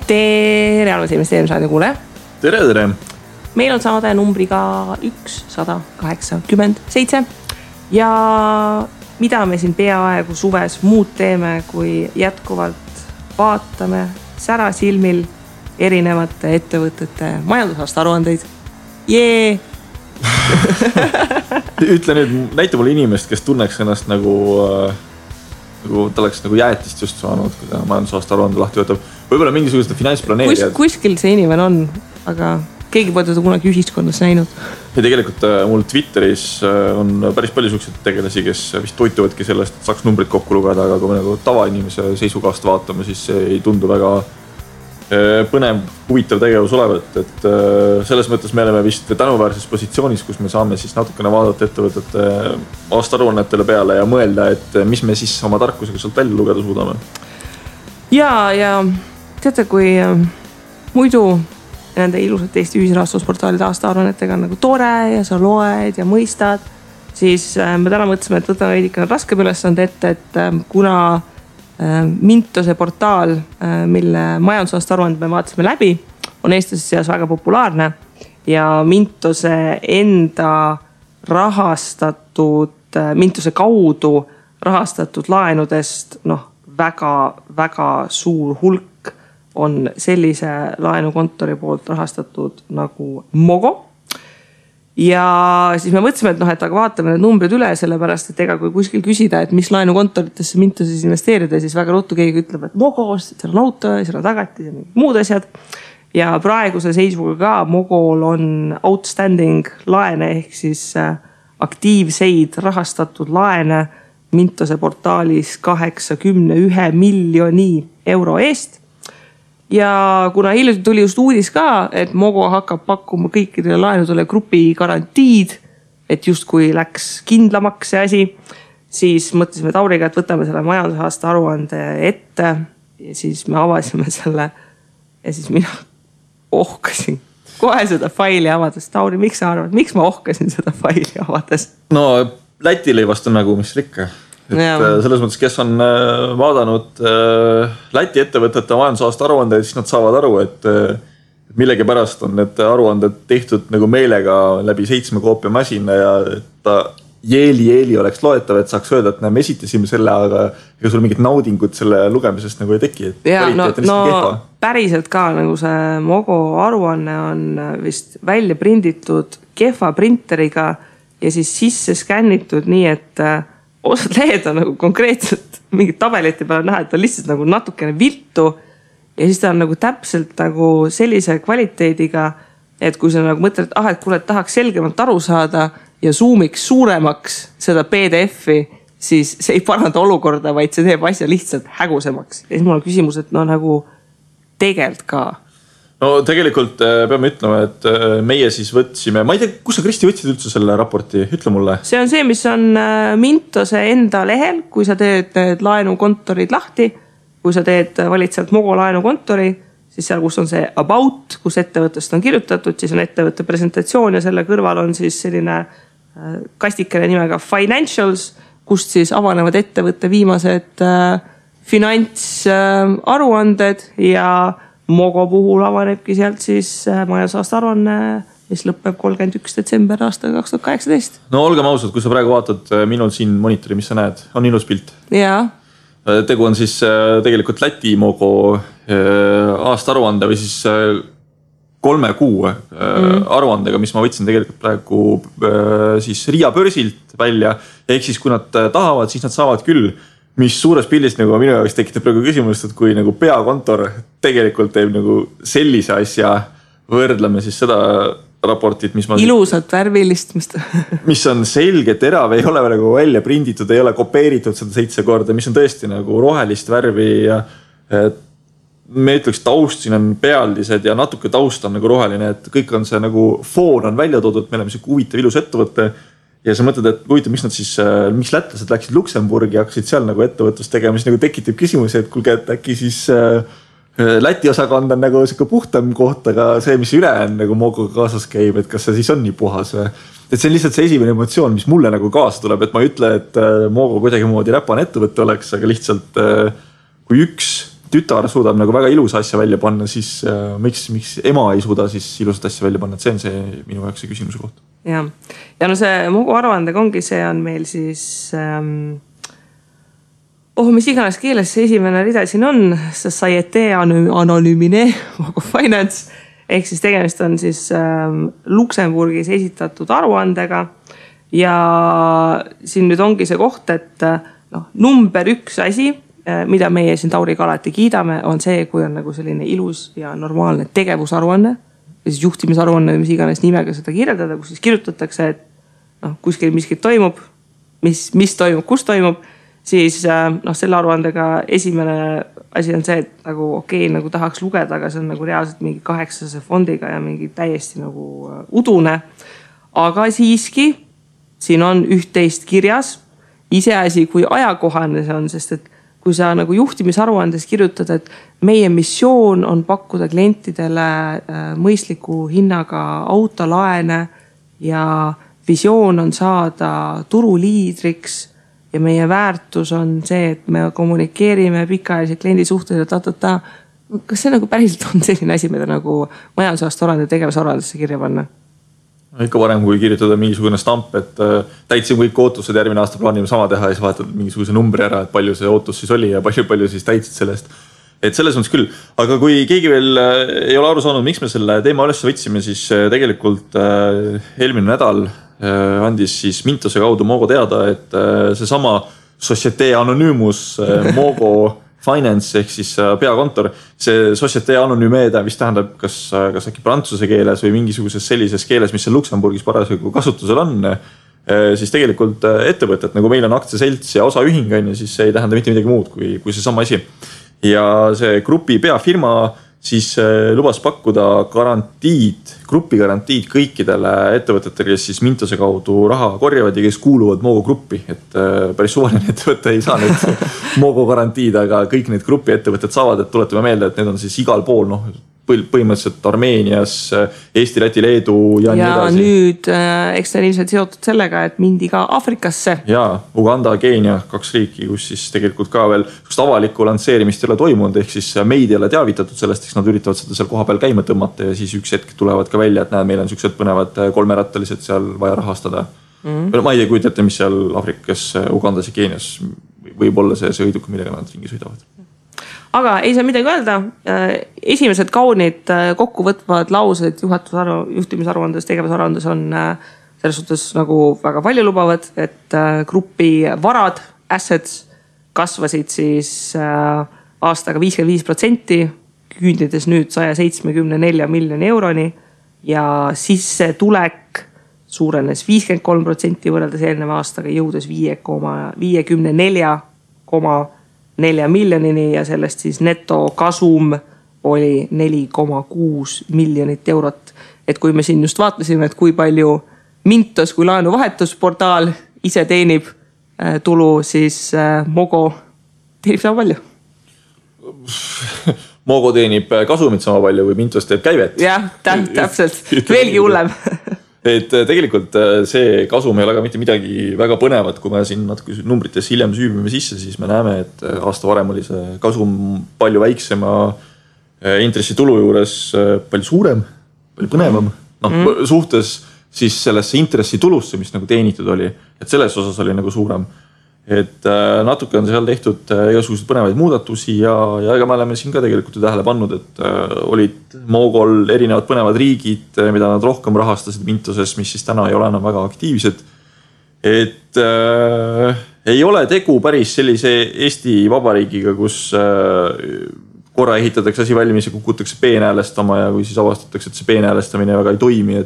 Tere, arvas investeerimisraadi kuule. Tere. Meil on saade numbriga 187 ja mida me siin peaaegu suves muud teeme, kui jätkuvalt vaatame särasilmil erinevate ettevõtete majandusaasta aruandeid. Jee! Ütle nüüd, näita mulle inimest, kes tunneks ennast nagu ta oleks nagu jäätist just saanud, kui ta majandusaasta aruande lahti võtab. Võib-olla mingisugused finantsplaneerijad. Kuskil see inimene on, aga keegi pole teda kunagi ühiskonnas näinud. Ja tegelikult mul Twitteris on päris palju selliseid tegelasi, kes vist toituvadki sellest, et saaks numbrid kokku lugeda, aga kui me nagu tavainimese seisukohast vaatame, siis see ei tundu väga põnev, huvitav tegevus olevat, et selles mõttes me oleme vist tänuväärses positsioonis, kus me saame siis natukene vaadata ettevõtete aastaaruannetele peale ja mõelda, et mis me siis oma tarkusega sealt välja lugeda suudame. Ja teate, kui muidu nende ilusat Eesti ühisrahastusportaalide aastaaruannetega on nagu tore ja sa loed ja mõistad, siis me täna mõtlesime, et võtame veidikene raskem ülesande ette, et kuna Mintose portaal, mille majandusaasta aruande me vaatasime läbi, on eestlaste seas väga populaarne ja Mintose enda Mintose kaudu rahastatud laenudest väga suur hulk on sellise laenukontori poolt rahastatud nagu Mogo. Ja siis me mõtlesime, et aga vaatame need numbrid üle, sellepärast, et ega kui kuskil küsida, et mis laenukontoritesse Mintoses investeerida, siis väga ruttu keegi ütleb, et Mogos, seal on auto, seal on tagatis ja muud asjad. Ja praeguse seisuga ka Mogol on outstanding laene ehk siis aktiivseid rahastatud laene Mintose portaalis 81 miljoni euro eest. Ja kuna hiljuti tuli just uudis ka, et Mogo hakkab pakkuma kõikidele laenudele grupi garantiid, et just kui läks kindlamaks see asi, siis mõtlesime Tauriga, et võtame selle majandusaasta aruande ette ja siis me avasime selle ja siis mina ohkasin kohe seda faili avades. Tauri, miks sa arvad, miks ma ohkasin seda faili avades? No Läti lõivast on nagu mis rikka. Et selles mõttes, kes on vaadanud Läti ettevõtete majandusaasta aruandeid, siis nad saavad aru, et millegi pärast on need aruanded tehtud nagu meelega läbi 7 koopia masina ja ta jeeli oleks loetav, et saaks öelda, et me esitasime selle, aga ega sul mingit naudingut selle lugemisest nagu ei teki. Ja, päriselt ka nagu see Mogo aruanne on vist välja prinditud kehva printeriga ja siis sisse skännitud nii, et osad lehed on nagu konkreetselt mingid tabelite peale näha, et on lihtsalt nagu natukene viltu ja siis ta on nagu täpselt nagu sellise kvaliteediga, et kui sa nagu mõtled, et kuule, tahaks selgemalt aru saada ja zoomiks suuremaks seda PDF-i, siis see ei paranda olukorda, vaid see teeb asja lihtsalt hägusemaks. Ja siis mul on küsimus, et nagu tegelt ka. No tegelikult peame ütlema, et meie siis võtsime, ma ei tea, kus sa Kristi võtsid üldse selle raporti, ütle mulle. See on see, mis on Mintose enda lehel, kui sa teed laenukontorid lahti, kui sa valid sealt Mogo laenukontori, siis seal, kus on see about, kus ettevõttest on kirjutatud, siis on ettevõtte presentatsioon ja selle kõrval on siis selline kastikene nimega financials, kust siis avanevad ettevõtte viimased finantsaruanded ja Mogo puhul avanebki sealt siis majandusaasta aruanne, mis lõpeb 31. detsember aastal 2018. No olgem ausad, kui sa praegu vaatad minul siin monitori, mis sa näed, on ilus pilt. Jaa. Tegu on siis tegelikult Läti Mogo aasta aruande või siis 3 kuu aruandega, mis ma võtsin tegelikult praegu siis Riia börsilt välja. Ehk siis kui nad tahavad, siis nad saavad küll. Mis suures pildis nagu minu jaoks tekitab praegu küsimust, et kui nagu peakontor tegelikult teeb nagu sellise asja, võrdleme siis seda raportit, mis ilusat värvilist, mis on selge, terav, ei ole nagu välja prinditud, ei ole kopeeritud seda 7 korda, mis on tõesti nagu rohelist värvi ja me ütleks taust, siin on pealdised ja natuke taust on nagu roheline, et kõik on see nagu foon on välja toodud, me oleme see huvitav ilus ettevõtte. Ja sa mõtled, et huvitav, miks lätlased läksid Luksemburgi ja hakkasid seal nagu ettevõtlust tegema, siis nagu tekitab küsimusi, et kulge, et äkki siis Läti osakond on nagu siuke puhtam koht, aga see, mis üle on nagu Mogoga kaasas käib, et kas see siis on nii puhas või? Et see on lihtsalt see esimene emotsioon, mis mulle nagu kaasa tuleb, et ma ei ütle, et Mogo kuidagi moodi räpane ettevõtte oleks, aga lihtsalt kui üks tütar suudab nagu väga ilusa asja välja panna, siis miks ema ei suuda siis ilusat asja välja panna, et see on see minu jaoks see küsimuse koht. Ja no see Mogo aruandega ongi, see on meil siis mis iganes keeles see esimene rida siin on, Societe Anonymine Mogo Finance, ehk siis tegemist on siis Luksemburgis esitatud aruandega ja siin nüüd ongi see koht, et number 1 asi, mida meie siin Tauriga alati kiidame, on see, kui on nagu selline ilus ja normaalne tegevusaruanne, siis juhtimisaruanne, mis iganes nimega seda kirjeldada, kus siis kirjutatakse, et kuskil miskit toimub, mis toimub, kus toimub, siis selle aruandega esimene asi on see, et nagu nagu tahaks lugeda, aga see on nagu reaalselt mingi 800 fondiga ja mingi täiesti nagu udune. Aga siiski siin on üht-teist kirjas, iseasi kui ajakohane see on, sest et kui sa nagu juhtimisaruandes kirjutad, et meie missioon on pakkuda klientidele mõistliku hinnaga autolaene ja visioon on saada turuliidriks ja meie väärtus on see, et me kommunikeerime pikaajaliselt kliendi suhtes ja kas see nagu päriselt on selline asi, mida nagu majandusaasta aruande tegevusaruandesse kirja panna? Ikka varem, kui kirjutada mingisugune stamp, et täitsin kõik ootused, järgmine aasta plaanime sama teha ja siis vaatad mingisuguse numbri ära, et palju see ootus siis oli ja palju siis täitsid sellest. Et selles mõttes küll. Aga kui keegi veel ei ole aru saanud, miks me selle teema üles võtsime, siis tegelikult eelmine nädal andis siis Mintose kaudu Mogo teada, et seesama Societe Anonymous Mogo Finance ehk siis peakontor, see Societe Anonyme vist tähendab kas äkki prantsuse keeles või mingisuguses sellises keeles, mis seal Luksemburgis parasjagu kasutusel on, siis tegelikult ettevõtet, nagu meil on aktsiaselts ja osaühing, siis see ei tähenda mitte midagi muud kui see sama asi. Ja see grupi peafirma siis lubas pakkuda grupi garantiid kõikidele ettevõtetele, kes siis Mintose kaudu raha korjavad ja kes kuuluvad Mogo gruppi. Et päris suvaline ettevõte ei saa nüüd Mogo garantiid, aga kõik need grupi ettevõtted saavad, et tuletame meelde, et need on siis igal pool, põhimõtteliselt Armeenias, Eesti, Läti, Leedu ja nii edasi. Ja nüüd eks ta ilmselt seotud sellega, et mindi ka Afrikasse. Ja Uganda, Keenia, 2 riiki, kus siis tegelikult ka veel avalikku lansseerimist ei ole toimunud, ehk siis meid ei ole teavitatud sellest, eks nad üritavad seda seal koha peal käima tõmmata ja siis üks hetk tulevad ka välja, et näed, meil on siuksed põnevad 3-rattalised seal vaja rahastada. Ma ei kujutate, mis seal Afrikas, Ugandas ja Keenias võib olla see sõiduk, millega nad ringi sõidavad. Aga ei saa midagi öelda. Esimesed kaunid kokkuvõtvad laused juhtimisaruandes, tegevusaruandes on selles suhtes nagu väga palju lubavad, et grupi varad, assets kasvasid siis aastaga 55%, küündides nüüd 174 miljoni euroni ja sissetulek suurenes 53% võrreldes eelneva aastaga, jõudes 54,4 miljonini ja sellest siis netokasum oli 4,6 miljonit eurot. Et kui me siin just vaatasime, et kui palju Mintos kui laenuvahetusportaal ise teenib tulu, siis Mogo teenib sama palju. Mogo teenib kasumit sama palju või Mintos teeb käivet. Jah, täpselt. Veelgi hullem. Et tegelikult see kasum ei ole ka mitte midagi väga põnevat, kui me siin natuke numbrites hiljem süübime sisse, siis me näeme, et aasta varem oli see kasum palju väiksema intressitulu juures palju suurem, palju põnevam. Suhtes siis sellesse intressitulusse, mis nagu teenitud oli, et selles osas oli nagu suurem. Et natuke on seal tehtud igasugused põnevaid muudatusi ja ega me oleme siin ka tegelikult tähele pannud, et olid Mogol erinevad põnevad riigid, mida nad rohkem rahastasid Mintoses, mis siis täna ei ole enam väga aktiivsed. Et ei ole tegu päris sellise Eesti Vabariigiga, kus korra ehitatakse asi valmis ja kukutakse peenäälestama ja kui siis avastatakse, et see peenäälestamine väga ei toimi,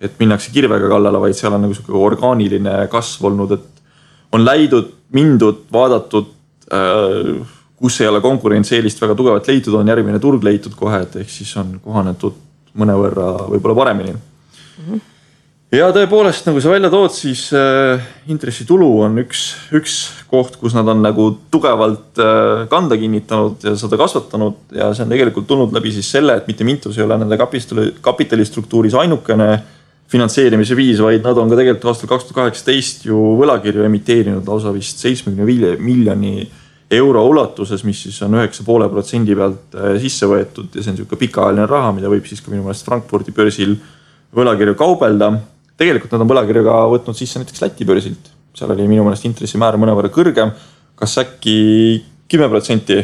et minnakse kirvega kallale, vaid seal on nagu orgaaniline kasv olnud, et on mindud, vaadatud, kus ei ole konkurentsieelist väga tugevalt leitud, on järgmine turg leitud kohe, et ehk siis on kohanetud mõnevõrra võib-olla paremini. Ja tõepoolest, nagu sa välja tood, siis intressitulu on üks koht, kus nad on nagu tugevalt kanda kinnitanud ja seda kasvatanud ja see on tegelikult tulnud läbi siis selle, et mitte Mintos ei ole nende kapitalistruktuuris ainukene finantseerimise viis, vaid nad on ka tegelikult aastal 2018 ju võlakirju emiteerinud lausa vist 75 miljoni euro ulatuses, mis siis on 9,5% pealt sisse võetud ja see on niisugune pikaajaline raha, mida võib siis ka minu meelest Frankfurdi börsil võlakirju kaubelda. Tegelikult nad on võlakirjuga võtnud sisse näiteks Läti börsilt. Seal oli minu meelest intressimäär mõnevõrra kõrgem, kas äkki 10%?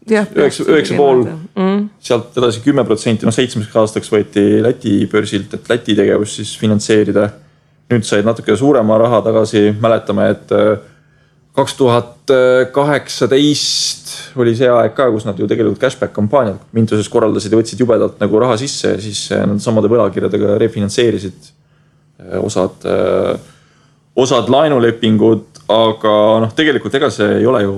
9,5%, sealt edasi 10%, 7 aastaks võeti Läti börsilt, et Läti tegevus siis finantseerida. Nüüd said natuke suurema raha tagasi, mäletame, et 2018 oli see aeg ka, kus nad ju tegelikult cashback kampaaniad Mintuses korraldasid ja võtsid jubedalt nagu raha sisse ja siis nad samade võlakirjadega refinantseerisid osad laenulepingud, aga tegelikult ega see ei ole ju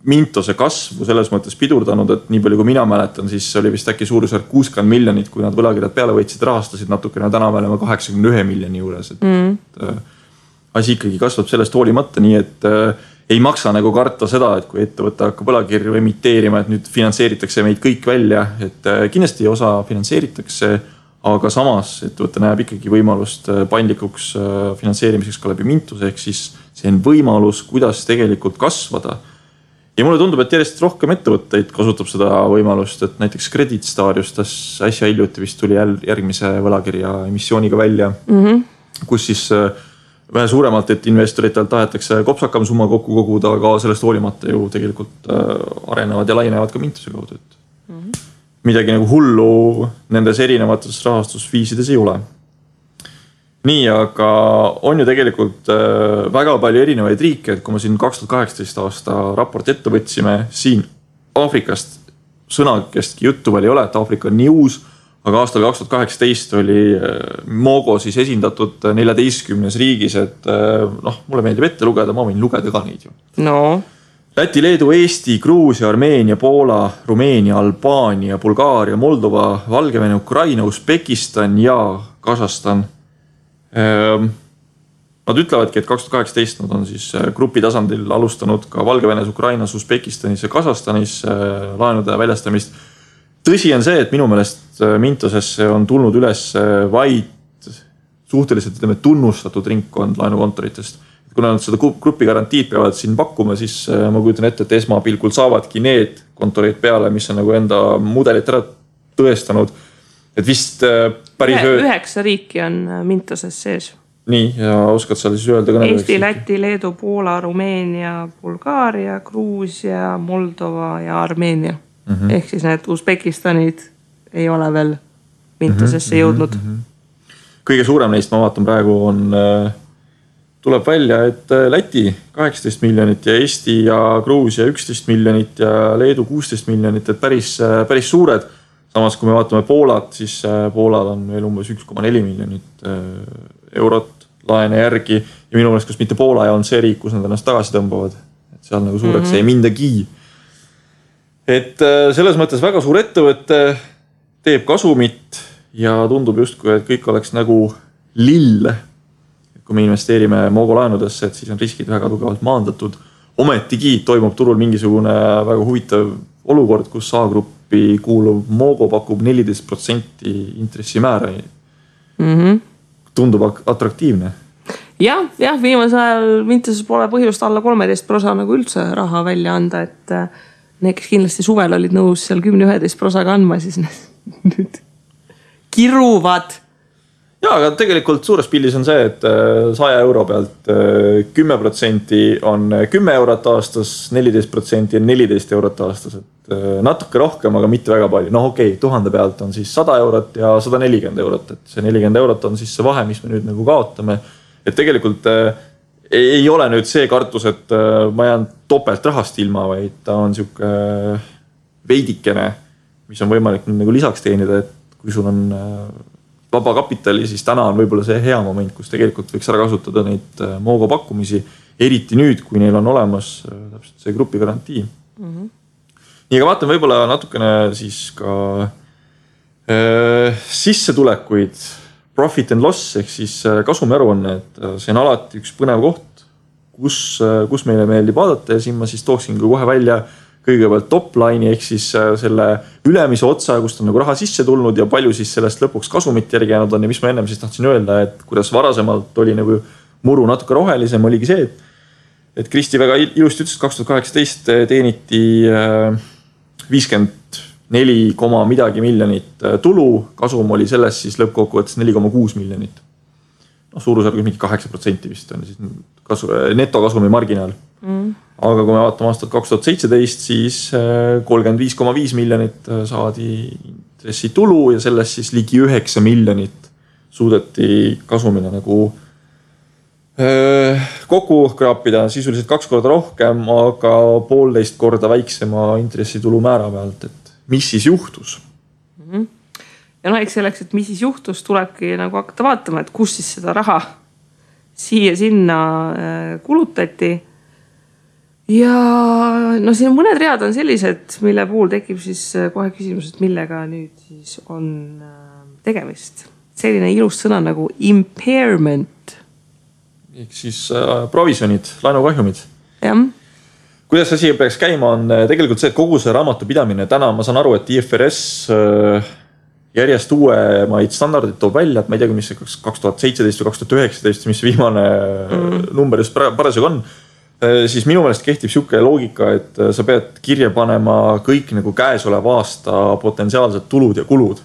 Mintose kasvu selles mõttes pidurdanud, et nii palju kui mina mäletan, siis oli vist äkki suurusjärk 60 miljonit, kui nad võlakirjad peale võitsid, rahastasid natukene, täna me oleme 81 miljoni juures. Asi ikkagi kasvab sellest hoolimata, nii et ei maksa nagu karta seda, et kui ettevõte hakkab võlakirju emiteerima, et nüüd finantseeritakse meid kõik välja, et kindlasti osa finantseeritakse, aga samas ettevõte näeb ikkagi võimalust paindlikuks finantseerimiseks ka läbi Mintuse, ehk siis see on võimalus, kuidas tegelikult kasvada. Ja mulle tundub, et järjest rohkem ettevõtteid kasutab seda võimalust, et näiteks Credit Star just äsja hiljuti vist tuli järgmise võlakirja emissiooniga välja, kus siis vähe suuremalt, et investoritelt tahetakse kopsakam summa kokku koguda, aga sellest hoolimata ju tegelikult arenevad ja lainevad ka Mintuse kaudu. Midagi nagu hullu nendes erinevates rahastusviisides ei ole. Nii, aga on ju tegelikult väga palju erinevaid riike, et kui me siin 2018 aasta raport ette võtsime, siin Aafrikast sõnakestki juttu veel ei ole, et Aafrika on nii uus, aga aastal 2018 oli Mogo siis esindatud 14 riigis, et mulle meeldib ette lugeda, ma võin lugeda ka neid ju. No. Läti, Leedu, Eesti, Gruusia, Armeenia, Poola, Rumeenia, Albaania, Bulgaaria, Moldova, Valgevene, Ukraina, Usbekistan ja Kasahstan. Nad ütlevadki, et 2018 nad on siis grupi tasandil alustanud ka Valgevenes, Ukrainas, Usbekistanis ja Kasahstanis laenude väljastamist. Tõsi on see, et minu meelest Mintosesse on tulnud üles vaid suhteliselt tunnustatud ringkond laenukontoritest. Kuna nad seda grupi garantiid peavad siin pakkuma, siis ma kujutan ette, et esmapilgul saavadki need kontorid peale, mis on nagu enda mudelit ära tõestanud. Et vist päris 9 riiki on Mintoses sees. Nii, ja oskad sa siis öelda ka Eesti, Läti, Leedu, Poola, Rumeenia, Bulgaaria, Gruusia, Moldova ja Armeenia. Ehk siis need Usbekistanid ei ole veel Mintosesse jõudnud. Kõige suurem neist, ma vaatan praegu, tuleb välja, et Läti 18 miljonit ja Eesti ja Gruusia 11 miljonit ja Leedu 16 miljonit, et päris suured. Samas, kui me vaatame Poolat, siis Poolal on veel umbes 1,4 miljonit eurot laene järgi. Ja minu meelest, kus mitte Poola ja on see riik, kus nad ennast tagasi tõmbavad. Et seal nagu suureks ei mindagi. Et selles mõttes väga suur ettevõte teeb kasumit ja tundub justkui, et kõik oleks nagu lill. Kui me investeerime Mogo laenudesse, et siis on riskid väga tugevalt maandatud. Ometigi toimub turul mingisugune väga huvitav olukord, kus A-gruppi kuuluv Mogo pakub 14% intressimäära. Tundub atraktiivne. Jah, viimase ajal Mintoses pole põhjust alla 13% nagu üldse raha välja anda, et need, kes kindlasti suvel olid nõus seal 10-11% andma, siis nüüd kiruvad. Ja, aga tegelikult suures pildis on see, et 100 euro pealt 10% on 10 eurot aastas, 14% on 14 eurot aastas. Et natuke rohkem, aga mitte väga palju. Okei, 1000 pealt on siis 100 eurot ja 140 eurot. Et see 40 eurot on siis see vahe, mis me nüüd nagu kaotame. Et tegelikult ei ole nüüd see kartus, et ma jään topelt rahast ilma, vaid ta on siuke veidikene, mis on võimalik nüüd nagu lisaks teenida, et kui sul on vaba kapitali, siis täna on võib-olla see hea moment, kus tegelikult võiks ära kasutada neid Mogo pakkumisi, eriti nüüd, kui neil on olemas täpselt see grupi garantii. Nii, aga vaatan võib-olla natukene siis ka sissetulekuid, profit and loss, ehk siis kasumiaruanne, et see on alati üks põnev koht, kus meile meeldib vaadata ja siin ma siis tooksin kohe välja kõigepealt top-line'i ehk siis selle ülemise otsa, kust on nagu raha sisse tulnud ja palju siis sellest lõpuks kasumit järgi jäänud on ja mis ma ennem siis tahtsin öelda, et kuidas varasemalt oli nagu muru natuke rohelisem, oligi see, et Kristi väga ilusti ütles, 2018 teeniti 54, midagi miljonit tulu, kasum oli selles siis lõppkokkuvõttes 4,6 miljonit. Suurusjärgus mingi 8% vist on siis netokasumi marginaal. Aga kui me vaatame aastat 2017, siis 35,5 miljonit saadi intressitulu ja sellest siis ligi 9 miljonit suudeti kasumina nagu kokku kraapida, sisuliselt 2 korda rohkem, aga 1,5 korda väiksema intressitulu määra pealt, et mis siis juhtus? Ja eks selleks, et mis siis juhtus, tulebki nagu hakata vaatama, et kus siis seda raha siia-sinna kulutati. Ja siin mõned read on sellised, mille puhul tekib siis kohe küsimus, et millega nüüd siis on tegemist. Selline ilus sõna nagu impairment. Ehk siis provisionid, laenukahjumid. Jah. Kuidas asi peaks käima on tegelikult see, et kogu see raamatupidamine täna, ma saan aru, et IFRS järjest uuemaid standardid toob välja, et ma ei tea, mis see 2017 või 2019, mis viimane number just parasjagu on, siis minu meelest kehtib siuke loogika, et sa pead kirja panema kõik nagu käesoleva aasta potentsiaalsed tulud ja kulud.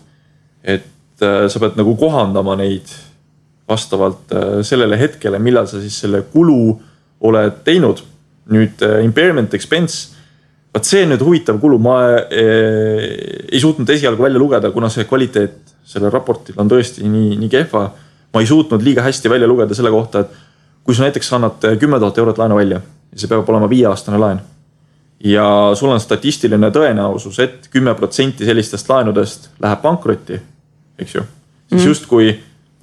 Et sa pead nagu kohandama neid vastavalt sellele hetkele, millal sa siis selle kulu oled teinud. Nüüd impairment expense, vaat see on nüüd huvitav kulu, ma ei suutnud esialgu välja lugeda, kuna see kvaliteet selle raportil on tõesti nii kehva. Ma ei suutnud liiga hästi välja lugeda selle kohta, et kui sa näiteks annad 10 000 eurot laenu välja ja see peab olema 5-aastane laen ja sul on statistiline tõenäosus, et 10% sellistest laenudest läheb pankrotti, eks ju, siis just kui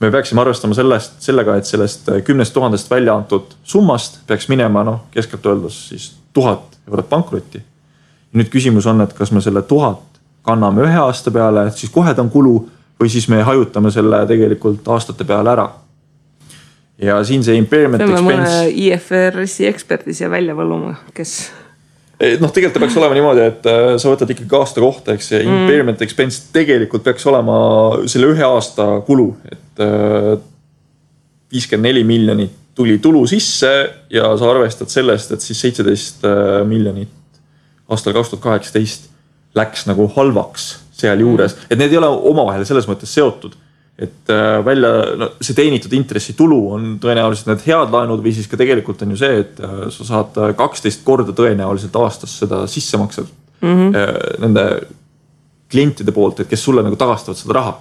me peaksime arvestama sellega, et sellest 10 000 välja antud summast peaks minema, keskelt öeldes siis 1000 eurot pankrotti. Ja nüüd küsimus on, et kas me selle 1000 kanname 1 aasta peale, et siis kohe ta on kulu või siis me hajutame selle tegelikult aastate peale ära. Ja siin see impairment expense... Peame mõne IFRS-i eksperdi siia välja võluma, kes... Tegelikult peaks olema niimoodi, et sa võtad ikkagi aasta kohta, eks see impairment expense tegelikult peaks olema selle 1 aasta kulu, et 54 miljonit tuli tulu sisse ja sa arvestad sellest, et siis 17 miljonit aastal 2018 läks nagu halvaks seal juures, et need ei ole omavahel selles mõttes seotud. Et see teenitud intressitulu on tõenäoliselt need head laenud või siis ka tegelikult on ju see, et sa saad 12 korda tõenäoliselt aastas seda sissemaksed nende klientide poolt, et kes sulle nagu tagastavad seda raha.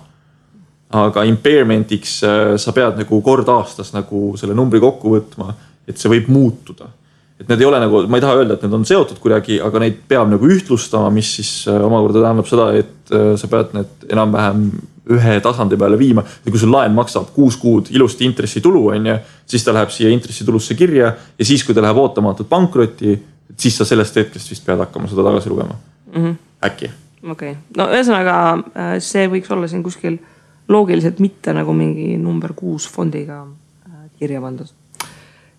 Aga impairmentiks sa pead nagu kord aastas nagu selle numbri kokku võtma, et see võib muutuda. Et need ei ole nagu, ma ei taha öelda, et need on seotud kuidagi, aga neid peab nagu ühtlustama, mis siis omakorda tähendab seda, et sa pead need enam-vähem ühe tasandi peale viima. Ja kui sul laen maksab 6 kuud ilusti intressitulu, siis ta läheb siia intressitulusse kirja ja siis, kui ta läheb ootamatult pankrotti, siis sa sellest hetkest vist pead hakkama seda tagasi lugema. Äkki. Okay. Ühesõnaga, see võiks olla siin kuskil loogiliselt mitte nagu mingi number 6 fondiga kirja pandud.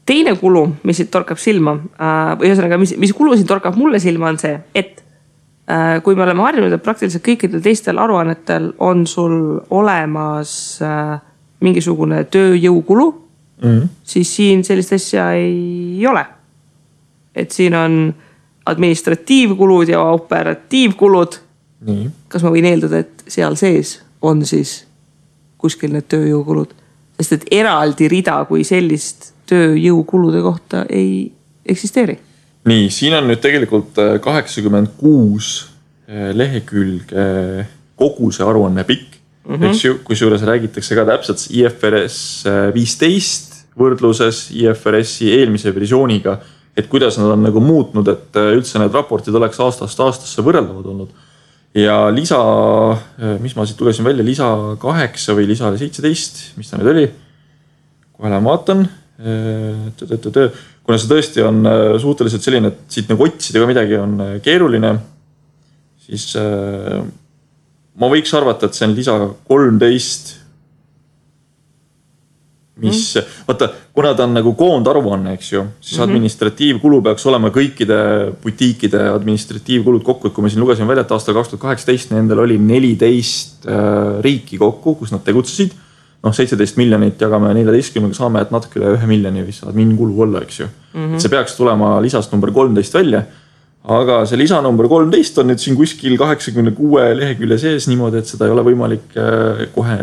Teine kulu, mis siit torkab silma, või ühesõnaga, mis kulu siit torkab mulle silma on see, et kui me oleme harjunud, et praktiliselt kõikidel teistel aruannetel on sul olemas mingisugune tööjõukulu, siis siin sellist asja ei ole. Et siin on administratiivkulud ja operatiivkulud. Nii. Kas ma võin eeldada, et seal sees on siis kuskil need tööjõukulud? Sest et eraldi rida kui sellist tööjõukulude kohta ei eksisteeri. Nii, siin on nüüd tegelikult 86 lehekülge kogu see aruanne pikk. Kui juures räägitakse ka täpselt IFRS 15 võrdluses IFRS-i eelmise versiooniga, et kuidas nad on nagu muutnud, et üldse need raportid oleks aastast aastasse võrreldavad olnud. Ja lisa, mis ma siit tulesin välja, lisa 8 või lisa 17, mis ta nüüd oli? Kohe lähen vaatan. Kuna see tõesti on suhteliselt selline, et siit nagu otsida ka midagi on keeruline, siis ma võiks arvata, et see on lisa 13, mis, vaata, kuna ta on nagu koondaruanne, eks ju, siis administratiivkulu peaks olema kõikide butiikide administratiivkulud kokku, et kui me siin lugesime välja, et aastal 2018 nendel oli 14 riiki kokku, kus nad tegutsesid. 17 miljonit jagame 14, saame, et natuke üle 1 miljoni vist saab mingi kulu olla, eks ju. See peaks tulema lisast number 13 välja. Aga see lisa number 13 on nüüd siin kuskil 86 lehekülje sees niimoodi, et seda ei ole võimalik kohe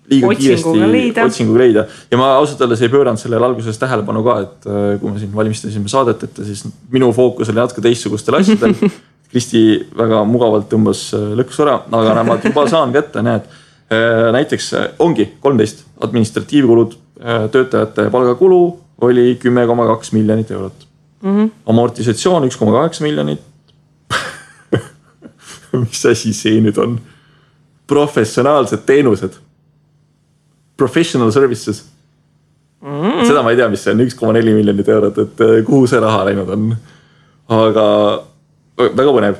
liiga kiiresti otsinguga leida. Ja ma ausalt öeldes ei pööranud sellele alguses tähelepanu ka, et kui me siin valmistasime saadet, et siis minu fookus oli natuke teistsugustel asjadel. Kristi väga mugavalt tõmbas lõks ära, aga ma juba saan kätte, näed. Näiteks ongi 13 administratiivkulud, töötajate palgakulu oli 10,2 miljonit eurot. Amortisatsioon 1,8 miljonit. Mis asi see nüüd on? Professionaalsed teenused. Professional services. Seda ma ei tea, mis see on 1,4 miljonit eurot, et kuhu see raha läinud on. Aga väga põnev.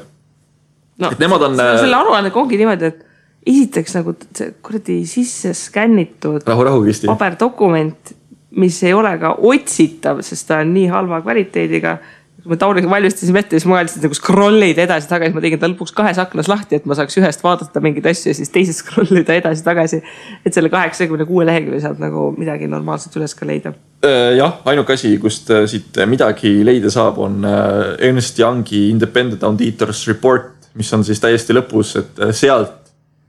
No, selle aruannega ongi niimoodi, et esiteks nagu see kuradi sisse skännitud paberdokument, mis ei ole ka otsitav, sest ta on nii halva kvaliteediga. Kui me Tauriga valmistasime ette, siis ma mõeldasin nagu scrollida edasi tagasi. Ma tegin ta lõpuks 2 aknas lahti, et ma saaks ühest vaadata mingid asju ja siis teisest scrollida edasi tagasi. Et selle 86 lehekülje saab nagu midagi normaalselt üles ka leida. Jah, ainuke asi, kust siit midagi leida saab, on Ernst Youngi Independent Auditors Report, mis on siis täiesti lõpus, et sealt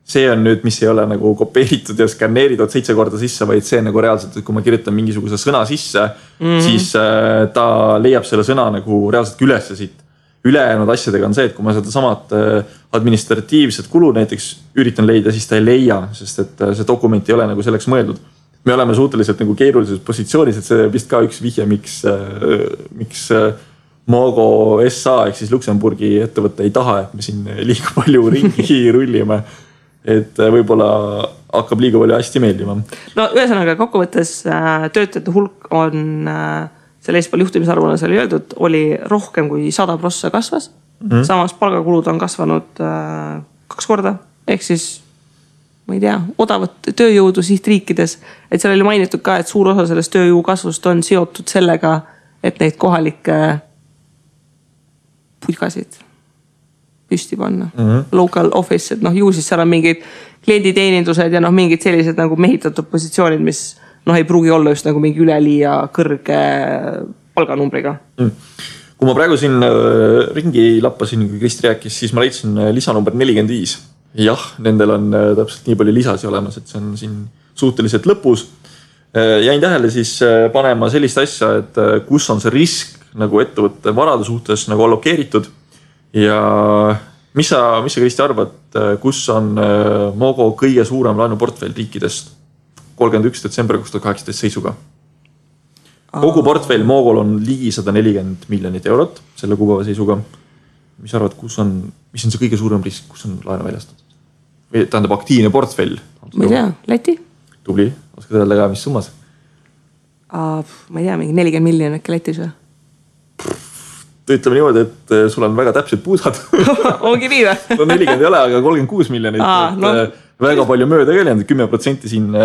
see on nüüd, mis ei ole nagu kopeeritud ja skanneeritud 7 korda sisse, vaid see nagu reaalselt, et kui ma kirjutan mingisuguse sõna sisse, siis ta leiab selle sõna nagu reaalselt üles siit. Ülejäänud asjadega on see, et kui ma seda samad administratiivset kulu näiteks üritan leida, siis ta ei leia, sest et see dokument ei ole nagu selleks mõeldud. Me oleme suhteliselt nagu keerulises positsioonis, et see vist ka üks vihje, miks Mogo SA ehk siis Luksemburgi ettevõtte ei taha, et me siin liiga palju ringi rullime. Et võibolla hakkab liiga palju hästi meeldima. No ühesõnaga kokkuvõttes töötajate hulk on selle Espal juhtimisarvuna seal öeldud, oli rohkem kui 100% kasvas. Samas palgakulud on kasvanud 2 korda. Ehk siis, ma ei tea, odavat tööjõudu sihtriikides. Et seal oli mainitud ka, et suur osa sellest tööjõu kasvust on seotud sellega, et neid kohalikke putkasid püsti panna. Local office, et ju siis seal on mingid klienditeenindused ja mingid sellised nagu mehitatud positsioonid, mis ei pruugi olla just nagu mingi üleliia kõrge palganumbriga. Kui ma praegu siin ringi lappasin, kui Kristi rääkis, siis ma leidsin lisa number 45. Jah, nendel on täpselt nii palju lisasi olemas, et see on siin suhteliselt lõpus. Jäin tähele siis panema sellist asja, et kus on see risk nagu ettevõtte varade suhtes nagu allokeeritud. Ja mis sa Kristi arvad, kus on Mogo kõige suurem laenuportfell riikidest 31. detsember 2018 seisuga? Kogu portfell Mogol on ligi 140 miljonit eurot selle kuupäeva seisuga. Mis arvad, mis on see kõige suurem risk, kus on laenu väljastatud? Või tähendab aktiivne portfell? Ma ei tea, Läti? Tubli, oskad öelda ka, mis summas? Ma ei tea, mingi 40 miljonit äkki Lätis või? Ütleme niimoodi, et sul on väga täpsed puusad. Ongi nii või? No 40 ei ole, aga 36 miljonit. Väga palju mööda ka jäänud, 10% siin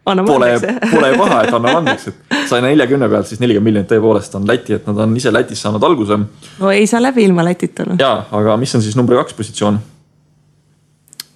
pole paha, et annab andeks. Sai 40 pealt, siis 40 miljonit tõepoolest on Läti, et nad on ise Lätis saanud alguse. No ei saa läbi ilma Lätita. Jaa, aga mis on siis number 2 positsioon?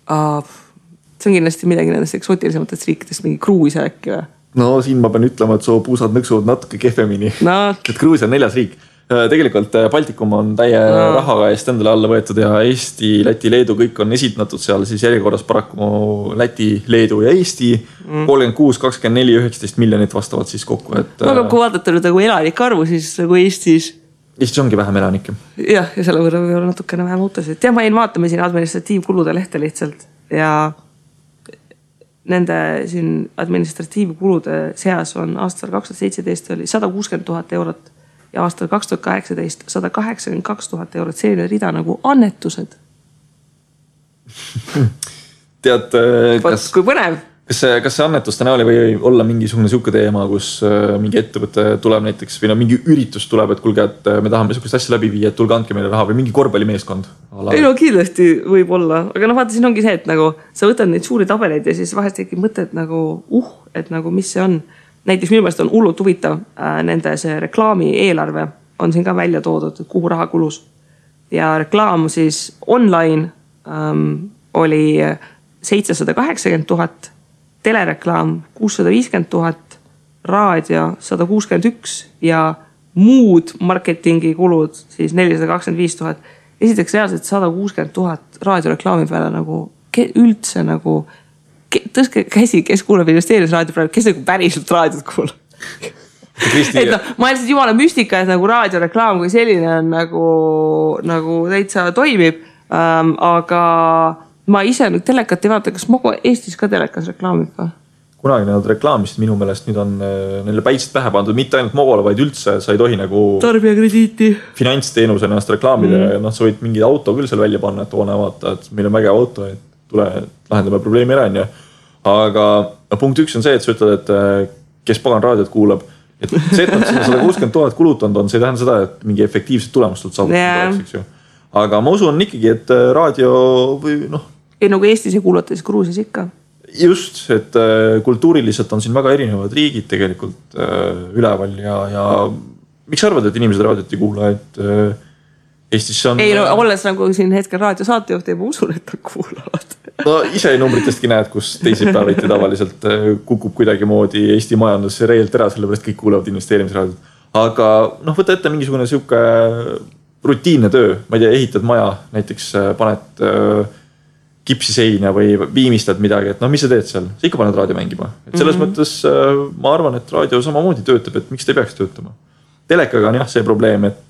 See on kindlasti midagi nendest eksootilisematest riikidest, mingi Gruusia äkki või? No siin ma pean ütlema, et su puusad nõksuvad natuke kehvemini. Et Gruusia on 4. riik. Tegelikult Baltikum on täie rahaga eest endale alla võetud ja Eesti, Läti, Leedu kõik on esitatud seal siis järjekorras paraku Läti, Leedu ja Eesti 36, 24, 19 miljonit vastavalt siis kokku. Aga kui vaadata nüüd nagu elanike arvu, siis nagu Eestis ongi vähem elanikke. Jah, ja selle võrra võib olla natukene vähem autosid. Ja ma jäin vaatama siin administratiivkulude lehte lihtsalt ja nende siin administratiivkulude seas on aastal 2017 oli 160 000 eurot ja aastal 2018 182 000 eurot selline rida nagu annetused. Tead, kui põnev. Kas see annetuste näoli või olla mingisugune siuke teema, kus mingi ettevõte tuleb näiteks või mingi üritus tuleb, et kulge, et me tahame sihukest asja läbi viia, et tulge andke meile raha või mingi korvpallimeeskond? Ei no kindlasti võib olla, aga vaata siin ongi see, et nagu sa võtad neid suuri tabeleid ja siis vahest tekib mõte, et nagu et nagu mis see on. Näiteks minu meelest on hullult huvitav nende see reklaami eelarve on siin ka välja toodud, kuhu raha kulus. Ja reklaam siis online oli 780 000 telereklaam 650 000, raadio 161 ja muud marketingi kulud siis 425 000. Esiteks reaalselt 160 000 raadioreklaami peale nagu üldse nagu tõstke käsi, kes kuuleb investeerimisraadio praegu, kes nagu päriselt raadiot kuulab. Et no, ma lihtsalt jumala müstika, et nagu raadioreklaam kui selline on nagu täitsa toimib, aga ma ise nüüd telekat ei vaata, kas Mogo Eestis ka telekas reklaamib ka? Kunagi nad reklaamist minu meelest nüüd on neile päitsed pähe pandud, mitte ainult Mogole, vaid üldse sa ei tohi nagu tarbijakrediiti finantsteenuse ennast reklaamida ja noh, sa võid mingi auto küll seal välja panna, et oone vaata, et meil on vägev auto, et tule lahendame probleemi ära, on ju. Aga punkt 1 on see, et sa ütled, et kes pagan raadiot kuulab, et see, et nad sinna 160 000 kulutanud on, see ei tähenda seda, et mingi efektiivset tulemust saavutada. Aga ma usun ikkagi, et raadio või noh. Ei nagu Eestis ei kuulata, siis Gruusias ikka. Just, et kultuuriliselt on siin väga erinevad riigid tegelikult üleval ja miks sa arvad, et inimesed raadiot ei kuula, et Eestis on... Ei, no olles nagu siin hetkel raadiosaatejuht ja ma usun, et nad kuulavad. No ise numbritestki näed, kus teisipäeviti tavaliselt kukub kuidagi moodi Eesti majandus reelt ära, sellepärast kõik kuulavad investeerimisraadiot. Aga noh, võta ette mingisugune siuke rutiinne töö, ma ei tea, ehitad maja, näiteks paned kipsiseina või viimistad midagi, et noh, mis sa teed seal? Sa ikka paned raadio mängima. Et selles mõttes ma arvan, et raadio samamoodi töötab, et miks ta ei peaks töötama. Telekaga on jah see probleem, et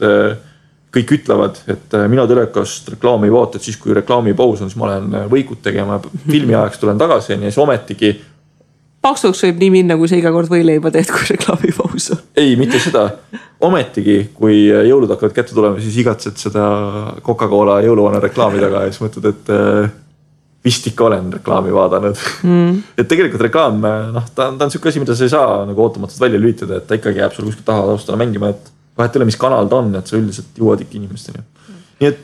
kõik ütlevad, et mina telekast reklaami ei vaata, et siis kui reklaami paus on, siis ma lähen võikut tegema, filmi ajaks tulen tagasi ja siis ometigi. Paksuks võib nii minna, kui sa iga kord võileiba teed, kui reklaami paus on. Ei, mitte seda. Ometigi, kui jõulud hakkavad kätte tulema, siis igatsed seda Coca-Cola jõuluvana reklaami taga ja siis mõtled, et vist ikka olen reklaami vaadanud. Et tegelikult reklaam, noh, ta on siuke asi, mida sa ei saa nagu ootamatult välja lülitada, et ta ikkagi jääb sul kuskil taha taustana mängima, et vahet ei ole, mis kanal ta on, et sa üldiselt jõuad ikka inimesteni. Nii et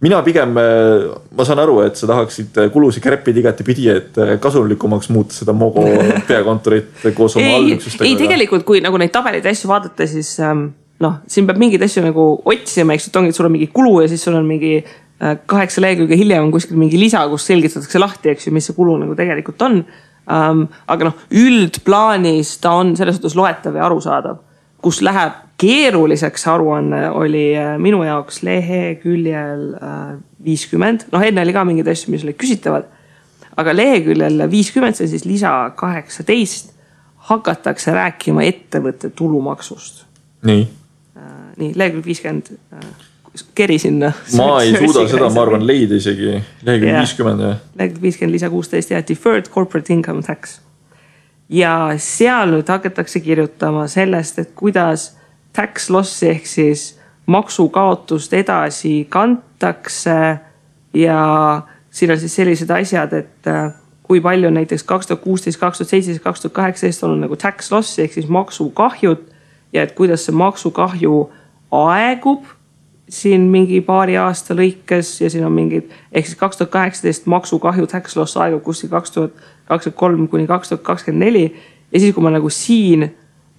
mina pigem, ma saan aru, et sa tahaksid kulusi kärpida igati pidi, et kasulikumaks muuta seda Mogo peakontorit koos oma allüksustega. Ei, tegelikult, kui nagu neid tabelid asju vaadata, siis noh, siin peab mingid asju nagu otsima, eks ongi, et sul on mingi kulu ja siis sul on mingi 8 lehekülge hiljem on kuskil mingi lisa, kus selgitatakse lahti, eks ju, mis see kulu nagu tegelikult on. Aga noh, üldplaanis ta on selles suhtes loetav ja arusaadav, kus läheb keeruliseks aruanne oli minu jaoks leheküljel 50. Noh, enne oli ka mingid asju, mis olid küsitavad. Aga leheküljel 50, see siis lisa 18, hakatakse rääkima ettevõtte tulumaksust. Nii. Nii, lehekülg 50... keri sinna. Ma ei suuda seda, ma arvan, leida isegi lehekülg 50. Lehekülg 50, lisa 16 ja deferred corporate income tax. Ja seal nüüd hakatakse kirjutama sellest, et kuidas tax lossi ehk siis maksukaotust edasi kantakse ja siin on siis sellised asjad, et kui palju on näiteks 2016, 2017, 2018 on nagu tax lossi ehk siis maksukahjud ja et kuidas see maksukahju aegub siin mingi paari aasta lõikes ja siin on mingid, ehk siis 2018 maksukahju tax loss aegub kuskil 2023 kuni 2024 ja siis kui ma nagu siin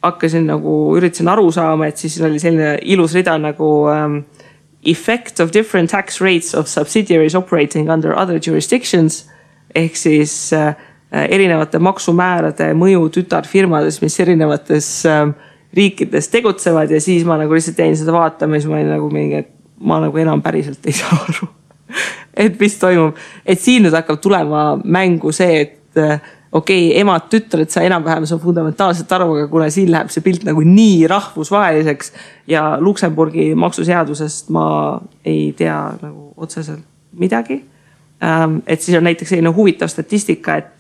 hakkasin nagu üritasin aru saama, et siis oli selline ilus rida nagu effect of different tax rates of subsidiaries operating under other jurisdictions ehk siis erinevate maksumäärade mõju tütarfirmades, mis erinevates riikides tegutsevad ja siis ma nagu lihtsalt jäin seda vaatama ja siis ma olin nagu mingi, et ma nagu enam päriselt ei saa aru, et mis toimub. Et siin nüüd hakkab tulema mängu see, et okei, emad tütred sa enam-vähem see on fundamentaalselt aru, aga kuna siin läheb see pilt nagu nii rahvusvaheliseks ja Luksemburgi maksuseadusest ma ei tea nagu otseselt midagi. Et siis on näiteks selline huvitav statistika, et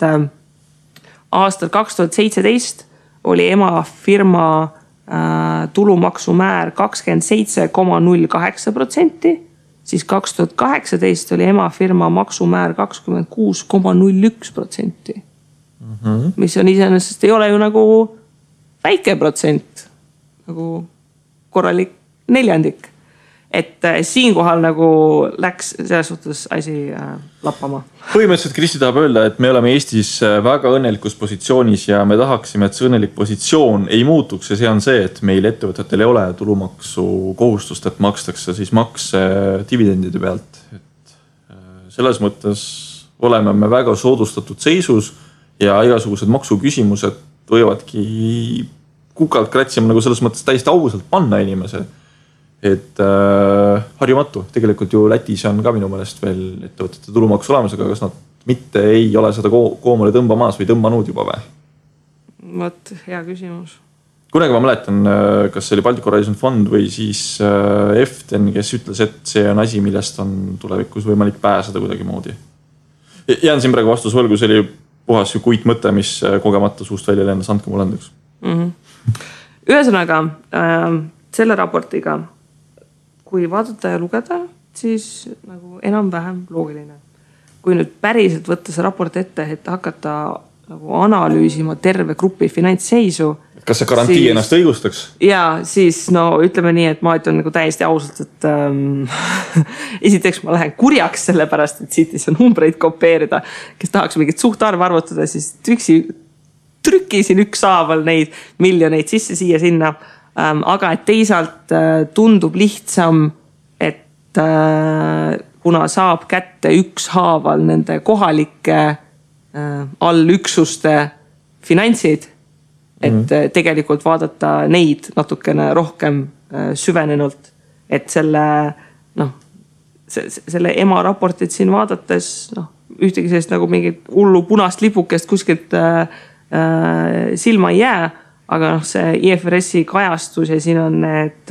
aastal 2017 oli ema firma tulumaksumäär 27,08%, siis 2018 oli ema firma maksumäär 26,01%, mis on iseenesest ei ole ju nagu väike protsent, nagu korralik neljandik. Et siinkohal nagu läks selles suhtes asi lappama. Põhimõtteliselt Kristi tahab öelda, et me oleme Eestis väga õnnelikus positsioonis ja me tahaksime, et see õnnelik positsioon ei muutuks ja see on see, et meil ettevõtetel ei ole tulumaksu kohustust, et makstakse siis makse dividendide pealt. Et selles mõttes oleme me väga soodustatud seisus ja igasugused maksuküsimused võivadki kukalt kratsima nagu selles mõttes täiesti ausalt panna inimese. Et harjumatu, tegelikult ju Lätis on ka minu meelest veel ettevõtete tulumaksu olemas, aga kas nad mitte ei ole seda koomale tõmbamas või tõmbanud juba või? Vot, hea küsimus. Kunagi ma mäletan, kas see oli Baltic Horizon Fond või siis EFTEN, kes ütles, et see on asi, millest on tulevikus võimalik pääseda kuidagi moodi. Jään siin praegu vastus võlgu, see oli puhas ju kuit mõte, mis kogemata suust välja lennas, andke mulle andeks. Ühesõnaga, selle raportiga, kui vaadata ja lugeda, siis nagu enam-vähem loogiline. Kui nüüd päriselt võtta see raport ette, et hakata nagu analüüsima terve grupi finantsseisu. Kas see garantii siis, ennast õigustaks? Jaa, siis no ütleme nii, et ma ütlen nagu täiesti ausalt, et esiteks ma lähen kurjaks selle pärast, et siit ei saa numbreid kopeerida, kes tahaks mingit suhtarv arvutada, siis trükisin ükshaaval neid miljoneid sisse siia sinna. Aga et teisalt tundub lihtsam, et kuna saab kätte ükshaaval nende kohalike allüksuste finantsid, et tegelikult vaadata neid natukene rohkem süvenenult, et selle ema raportit siin vaadates ühtegi sellist nagu mingit hullu punast lipukest kuskilt silma ei jää, aga see IFRS-i kajastus ja siin on need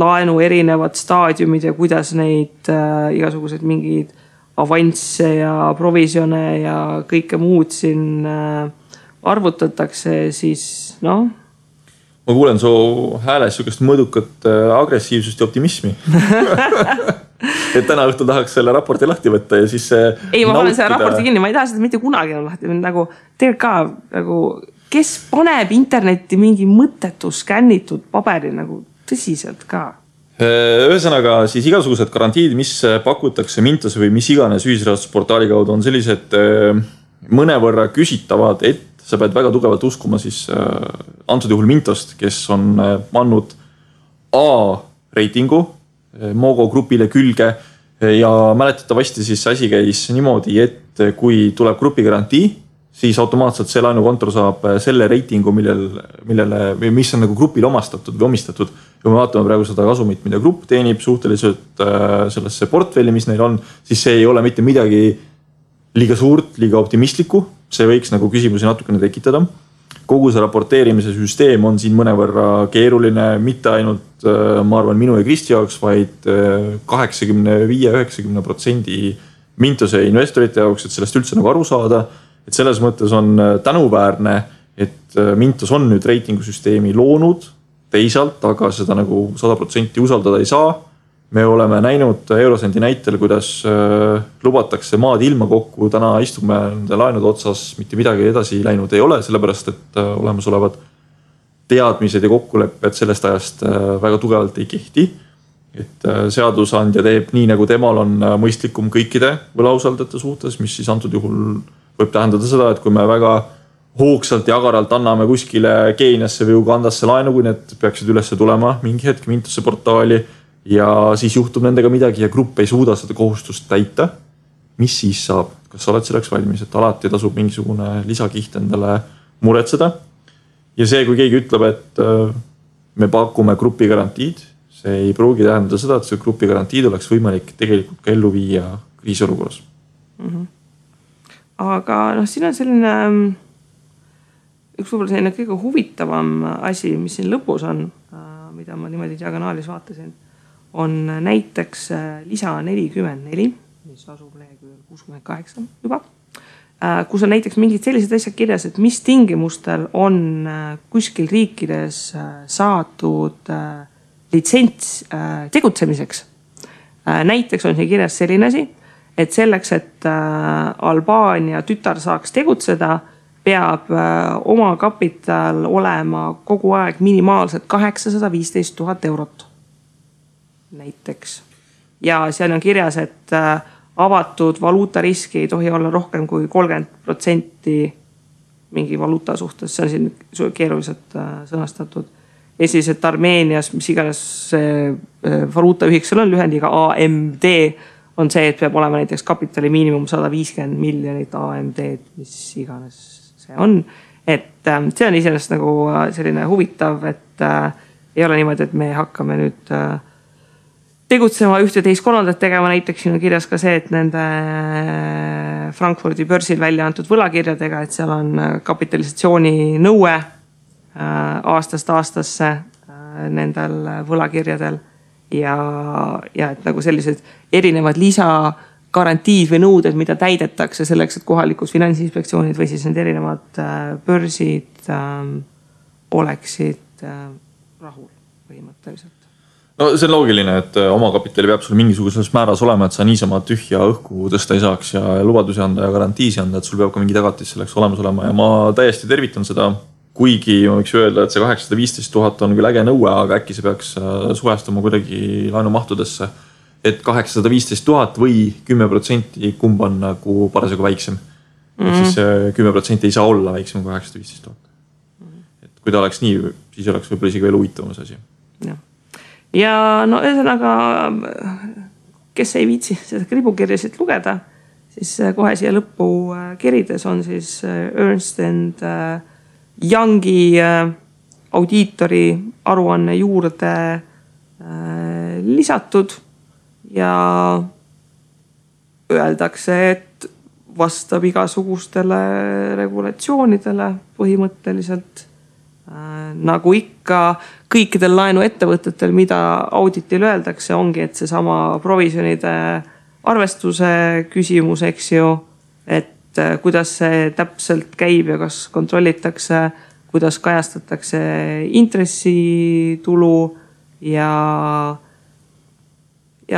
laenu erinevad staadiumid ja kuidas neid igasugused mingid avansse ja provisione ja kõike muud siin arvutatakse, siis Ma kuulen su hääles sükest mõõdukat agressiivsust ja optimismi. Et täna õhtul tahaks selle raporti lahti võtta ja siis ei, ma olen selle raporti kinni, ma ei taha seda mitte kunagi lahti. Nagu tegelikult ka nagu kes paneb internetti mingi mõttetu skännitud paberi nagu tõsiselt ka? Ühesõnaga siis igasugused garantiid, mis pakutakse Mintose või mis iganes ühisrahastusportaali kaudu on sellised mõnevõrra küsitavad, et sa pead väga tugevalt uskuma siis antud juhul Mintost, kes on pannud A-reitingu Mogo grupile külge ja mäletatavasti siis asi käis niimoodi, et kui tuleb grupi garantii, siis automaatselt see laenukontor saab selle reitingu, mis on nagu grupile omastatud või omistatud. Kui me vaatame praegu seda kasumit, mida grupp teenib suhteliselt sellesse portfelli, mis neil on, siis see ei ole mitte midagi liiga suurt, liiga optimistlikku. See võiks nagu küsimusi natukene tekitada. Kogu see raporteerimise süsteem on siin mõnevõrra keeruline, mitte ainult, ma arvan, minu ja Kristi jaoks, vaid 85-90% Mintose investorite jaoks, et sellest üldse nagu aru saada. Et selles mõttes on tänuväärne, et Mintos on nüüd reitingusüsteemi loonud teisalt, aga seda nagu 100% usaldada ei saa. Me oleme näinud Eurosendi näitel, kuidas lubatakse maad ilma kokku. Täna istume nende laenude otsas, mitte midagi edasi läinud ei ole, sellepärast et olemasolevad teadmised ja kokkulepped sellest ajast väga tugevalt ei kehti. Et seadusandja teeb nii, nagu temal on mõistlikum kõikide võlausaldajate suhtes, mis siis antud juhul võib tähendada seda, et kui me väga hoogsalt ja agaralt anname kuskile Keeniasse või Ugandasse laenu, kui need peaksid üles tulema mingi hetk Mintose portaali ja siis juhtub nendega midagi ja grupp ei suuda seda kohustust täita, mis siis saab? Kas sa oled selleks valmis, et alati tasub mingisugune lisakiht endale muretseda? Ja see, kui keegi ütleb, et me pakume grupi garantiid, see ei pruugi tähendada seda, et see grupi garantiid oleks võimalik tegelikult ka ellu viia kriisiolukorras. Aga siin on selline üks võib-olla selline kõige huvitavam asi, mis siin lõpus on, mida ma niimoodi diagonaalis vaatasin, on näiteks lisa 44, mis asub leheküljel 68 juba, kus on näiteks mingid sellised asjad kirjas, et mis tingimustel on kuskil riikides saadud litsents tegutsemiseks. Näiteks on siin kirjas selline asi, et selleks, et Albaania tütar saaks tegutseda, peab oma kapital olema kogu aeg minimaalselt 815 000 eurot. Näiteks. Ja seal on kirjas, et avatud valuutariski ei tohi olla rohkem kui 30% mingi valuuta suhtes. See on siin keeruliselt sõnastatud. Ja siis, et Armeenias, mis iganes valuutaühik seal on lühendiga AMD, on see, et peab olema näiteks kapitali miinimum 150 miljonit AMD-d, mis iganes see on. Et see on iseenesest nagu selline huvitav, et ei ole niimoodi, et me hakkame nüüd tegutsema ühte, teist, kolmandat tegema. Näiteks siin on kirjas ka see, et nende Frankfurdi börsil välja antud võlakirjadega, et seal on kapitalisatsiooni nõue aastast aastasse nendel võlakirjadel ja et nagu sellised erinevad lisagarantiid või nõuded, mida täidetakse selleks, et kohalikud finantsinspektsioonid või siis need erinevad börsid oleksid rahul põhimõtteliselt. No see on loogiline, et omakapitali peab sul mingisuguses määras olema, et sa niisama tühja õhku tõsta ei saaks ja lubadusi anda ja garantiisi anda, et sul peab ka mingi tagatis selleks olemas olema ja ma täiesti tervitan seda. Kuigi ma võiks öelda, et see 815 000 on küll äge nõue, aga äkki see peaks suhestuma kuidagi laenumahtudesse, et 815 000 või 10% kumb on nagu parasjagu väiksem. Siis 10% ei saa olla väiksem kui 815 000. Et kui ta oleks nii, siis oleks võib-olla isegi veel huvitavam see asi. Ja no ühesõnaga, kes ei viitsi seda kribukirjasid lugeda, siis kohe siia lõppu kirides on siis Ernst & Youngi audiitori aruanne juurde lisatud ja öeldakse, et vastab igasugustele regulatsioonidele põhimõtteliselt. Nagu ikka kõikidel laenuettevõtetel, mida auditil öeldakse, ongi, et see sama provisionide arvestuse küsimus, eks ju, et kuidas see täpselt käib ja kas kontrollitakse, kuidas kajastatakse intressitulu ja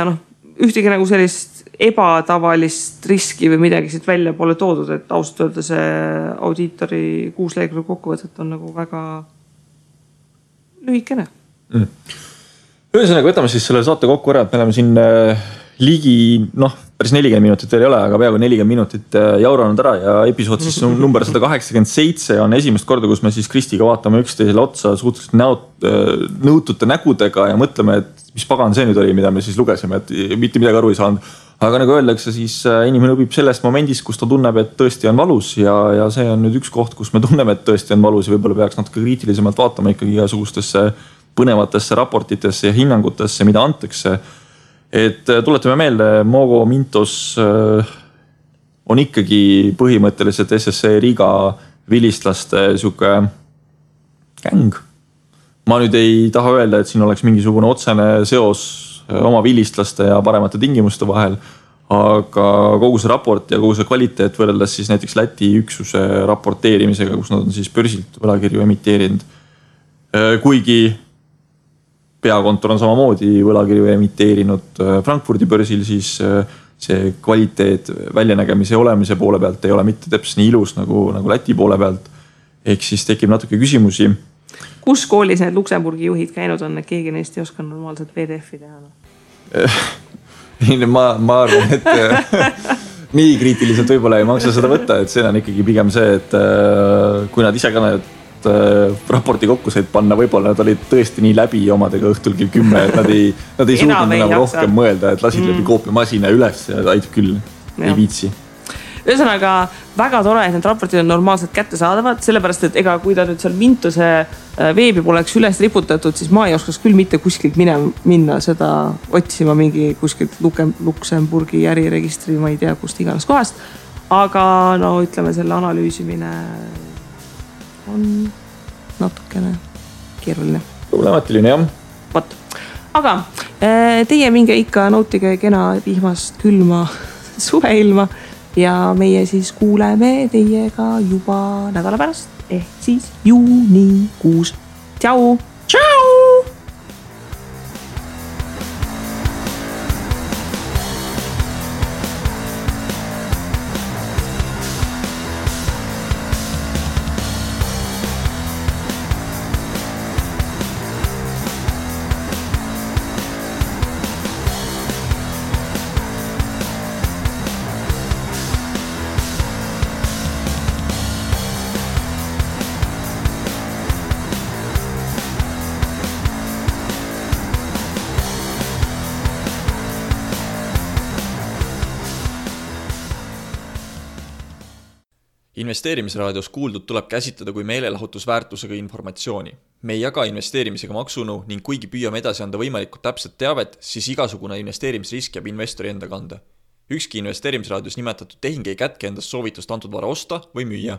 noh, ühtegi nagu sellist ebatavalist riski või midagi siit välja pole toodud, et ausalt öelda see audiitori 6 lehekülge kokkuvõtet on nagu väga lühikene. Ühesõnaga, võtame siis selle saate kokku ära, et me oleme siin ligi, päris 40 minutit veel ei ole, aga peaaegu 40 minutit jauranud ära ja episood siis number 187 on esimest korda, kus me siis Kristiga vaatame üksteisele otsa suhteliselt nõutute nägudega ja mõtleme, et mis pagan see nüüd oli, mida me siis lugesime, et mitte midagi aru ei saanud. Aga nagu öeldakse, siis inimene õpib sellest momendist, kus ta tunneb, et tõesti on valus ja see on nüüd üks koht, kus me tunneme, et tõesti on valus ja võib-olla peaks natuke kriitilisemalt vaatama ikkagi igasugustesse põnevatesse raportitesse ja hinnangutesse, mida antakse. Et tuletame meelde, Mogo Mintos on ikkagi põhimõtteliselt SSC Riga vilistlaste siuke gäng. Ma nüüd ei taha öelda, et siin oleks mingisugune otsene seos oma vilistlaste ja paremate tingimuste vahel, aga kogu see raport ja kogu see kvaliteet võrreldes siis näiteks Läti üksuse raporteerimisega, kus nad on siis börsilt võlakirju emiteerinud. Kuigi peakontor on samamoodi võlakirju emiteerinud Frankfurdi börsil, siis see kvaliteet väljanägemise ja olemise poole pealt ei ole mitte täpselt nii ilus nagu Läti poole pealt. Ehk siis tekib natuke küsimusi. Kus koolis need Luksemburgi juhid käinud on, et keegi neist ei oska normaalselt PDF-i teha? Ma arvan, et nii kriitiliselt võib-olla ei maksa seda võtta, et see on ikkagi pigem see, et kui nad ise ka need raporti kokku said panna, võib-olla nad olid tõesti nii läbi omadega õhtul kell 10, et nad ei suutnud enam rohkem mõelda, et lasid läbi koopiamasina üles ja aitab küll, ei viitsi. Ühesõnaga, väga tore, et need raportid on normaalselt kättesaadavad, sellepärast, et ega kui ta nüüd seal Mintuse veebi poleks üles riputatud, siis ma ei oskaks küll mitte kuskilt minna seda otsima mingi kuskilt Luksemburgi äriregistri, ma ei tea, kust iganes kohast. Aga no ütleme, selle analüüsimine on natukene keeruline. Problematiline, jah. Võt. Aga teie minge ikka nautige kena vihmast külma suveilma ja meie siis kuuleme teiega juba nädala pärast ehk siis juunikuus. Tšau! Tšau! Investeerimisraadios kuuldud tuleb käsitleda kui meelelahutusväärtusega informatsiooni. Me ei jaga investeerimisega maksunu ning kuigi püüame edasi anda võimalikult täpset teavet, siis igasugune investeerimisrisk jääb investori enda kanda. Ükski investeerimisraadios nimetatud tehing ei kätke endast soovitust antud vara osta või müüa.